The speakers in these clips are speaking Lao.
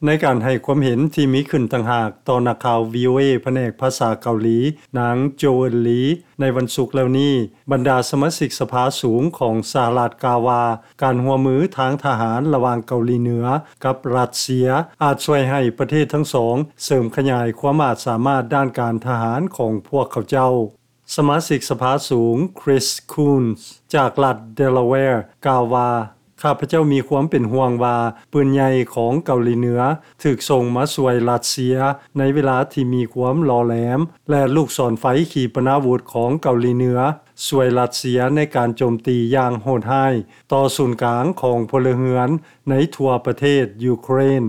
ໃນການໃຫ້ຄວາມເຫັນທີ່ມີຂຶ້ນຕ່າງຫາກຕໍ່ນັກຂ່າວ ວີໂອເອ ພະແນກພາສາເກົາຫຼີ ນາງ ໂຈເອີນ ລີ ໃນວັນສຸກແລ້ວນີ້, ບັນດາສະມາຊິກສະພາສູງຂອງສະຫະລັດກ່າວວ່າ ການຮ່ວມມືທາງທະຫານລະຫວ່າງເກົາຫຼີເໜືອກັບຣັດເຊຍ ອາດຊ່ວຍໃຫ້ປະເທດທັງສອງເສີມຂະຫຍາຍຄວາມອາດສາມາດດ້ານການທະຫານຂອງພວກເຂົາເຈົ້າ. ສະມາຊິກສະພາສູງ Chris Coons ຈາກລັດ Delaware ກ່າວວ່າ, ຂ້າພະເຈົ້າມີຄວາມເປັນຫ່ວງວ່າ ປືນໃຫຍ່ຂອງເກົາຫຼີເໜືອຖືກສົ່ງມາຊ່ວຍຣັດເຊຍໃນເວລາທີ່ມີຄວາມຫຼໍ່ແຫຼມ ແລະ ລູກສອນໄຟຂີປະນາວຸດຂອງເກົາຫຼີເໜືອຊ່ວຍຣັດເຊຍໃນການໂຈມຕີຢ່າງໂຫດຮ້າຍຕໍ່ສູນກາງຂອງພົນລະເຮືອນໃນທົ່ວປະເທດຢູເຄຣນ.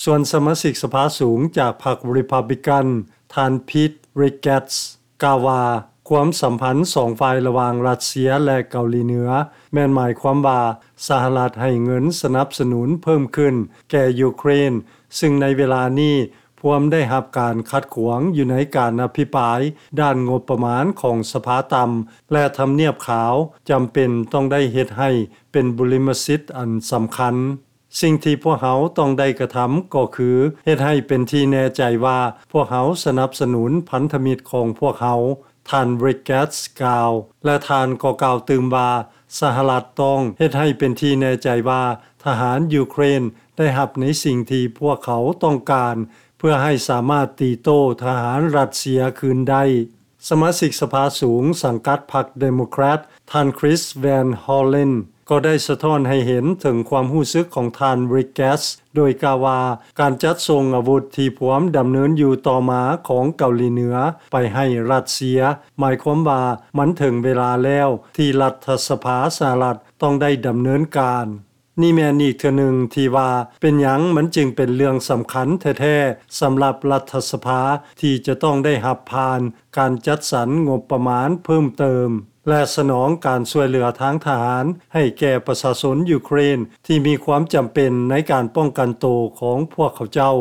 ສ່ວນສະມາຊິກສະພາສູງຈາກພັກ Republican ທ່ານ Pete Ricketts ກ່າວວ່າ ຄວາມສຳພັນສອງຝ່າຍລະຫວ່າງຣັດເຊຍ ແລະ ເກົາຫຼີເໜືອ ແມ່ນໝາຍຄວາມວ່າ ສະຫະລັດໃຫ້ເງິນສະໜັບສະໜູນເພີ່ມຂຶ້ນແກ່ຢູເຄຣນ, ຊຶ່ງໃນເວລານີ້ພວມໄດ້ຮັບການຂັດຂວາງຢູ່ໃນການອະພິປາຍດ້ານງົບປະມານຂອງສະພາຕ່ຳ ແລະ ທຳນຽບຂາວຈຳເປັນຕ້ອງໄດ້ເຮັດໃຫ້ເປັນບຸລິມະສິດອັນສຳຄັນ. ສິ່ງທີ່ພວກເຮົາຕ້ອງໄດ້ກະທຳກໍຄືເຮັດໃຫ້ເປັນທີ່ແນ່ໃຈວ່າພວກເຮົາສະໜັບສະໜູນພັນທະມິດຂອງພວກເຮົາ, ທ່ານ Ricketts ກ່າວ ແລະ ທ່ານກໍກ່າວຕື່ມວ່າ ສະຫະລັດຕ້ອງເຮັດໃຫ້ເປັນທີ່ແນ່ໃຈວ່າທະຫານຢູເຄຣນໄດ້ຮັບໃນສິ່ງທີ່ພວກເຂົາຕ້ອງການ ເພື່ອໃຫ້ສາມາດຕີໂຕ້ທະຫານຣັດເຊຍຄືນໄດ້. ສະມາຊິກສະພາສູງສັງກັດພັກ Democrat ທ່ານ Chris Van Hollen ກໍໄດ້ສະທ້ອນໃຫ້ເຫັນເຖິງຄວາມຮູ້ສຶກຂອງທ່ານ Ricketts ໂດຍກ່າວວ່າ ການຈັດສົ່ງອາວຸດທີ່ພວມດຳເນີນຢູ່ຕໍ່ມາຂອງເກົາຫຼີເໜືອໄປໃຫ້ຣັດເຊຍ ໝາຍຄວາມວ່າມັນເຖິງເວລາແລ້ວທີ່ລັດຖະສະພາສະຫະລັດຕ້ອງໄດ້ດຳເນີນການ. ນີ້ແມ່ນອີກເທື່ອໜຶ່ງທີ່ວ່າເປັນຫຍັງມັນຈຶ່ງເປັນເລື່ອງສຳຄັນແທ້ໆ ສຳລັບລັດຖະສະພາທີ່ຈະຕ້ອງໄດ້ຮັບຜ່ານການຈັດສັນງົບປະມານເພີ່ມເຕີມ ແລະ ສະໜອງການຊ່ວຍເຫຼືອທາງທະຫານໃຫ້ແກ່ປະຊາຊົນຢູເຄຣນທີ່ມີຄວາມຈຳເປັນໃນການປ້ອງກັນໂຕຂອງພວກເຂົາເຈົ້າ.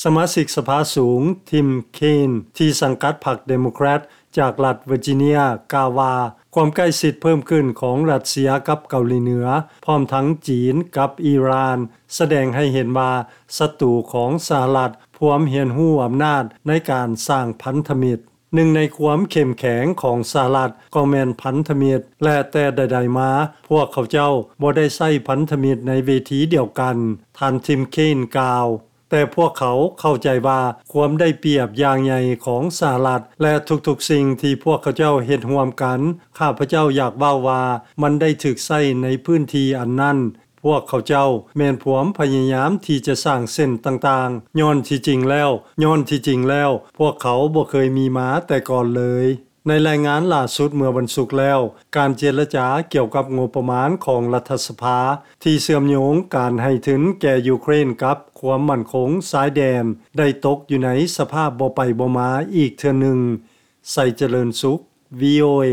ສະມາຊິກສະພາສູງ Tim Kaine ທີ່ສັງກັດພັກ Democrat ຈາກລັດ Virginia ກ່າວວ່າ ຄວາມໃກ້ຊິດເພີ່ມຂຶ້ນຂອງຣັດເຊຍກັບເກົາຫຼີເໜືອ ພ້ອມທັງຈີນກັບອີຣານ ສະແດງໃຫ້ເຫັນວ່າສັດຕູຂອງສະຫະລັດພວມຮຽນຮູ້ອຳນາດໃນການສ້າງພັນທະມິດ. ໜຶ່ງໃນຄວາມເຂັ້ມແຂງຂອງສະຫະລັດກໍແມ່ນພັນທະມິດ ແລະ ແຕ່ໃດໆມາ ພວກເຂົາເຈົ້າບໍ່ໄດ້ໃຊ້ພັນທະມິດໃນເວທີດຽວກັນ, ທ່ານ Tim Kaine ກ່າວ. ແຕ່ພວກເຂົາເຂົ້າໃຈວ່າຄວາມໄດ້ປຽບຢ່າງໃຫຍ່ຂອງສະຫະລັດ ແລະ ທຸກໆສິ່ງທີ່ພວກເຂົາເຈົ້າເຮັດຮ່ວມກັນ, ຂ້າພະເຈົ້າຢາກເວົ້າວ່າມັນໄດ້ຖືກໃຊ້ໃນພື້ນທີ່ອັນນັ້ນ. ພວກເຂົາເຈົ້າແມ່ນພວມພະຍາຍາມທີ່ຈະສ້າງເສັ້ນຕ່າງໆ, ຍ້ອນທີ່ຈິງແລ້ວ, ຍ້ອນທີ່ຈິງແລ້ວ ພວກເຂົາບໍ່ເຄີຍມີມາແຕ່ກ່ອນເລີຍ. ໃນລາຍງານລ່າສຸດເມື່ອວັນສຸກແລ້ວ, ການເຈລະຈາກ່ຽວກັບງົບປະມານຂອງລັດຖະສະພາ ທີ່ເຊື່ອມໂຍງການໃຫ້ທຶນແກ່ຢູເຄຣນກັບຄວາມໝັ້ນຄົງຊາຍແດນ ໄດ້ຕົກຢູ່ໃນສະພາບບໍ່ໄປບໍ່ມາອີກເທື່ອໜຶ່ງ. ໄຊຈະເລີນສຸກ ວີໂອເອ.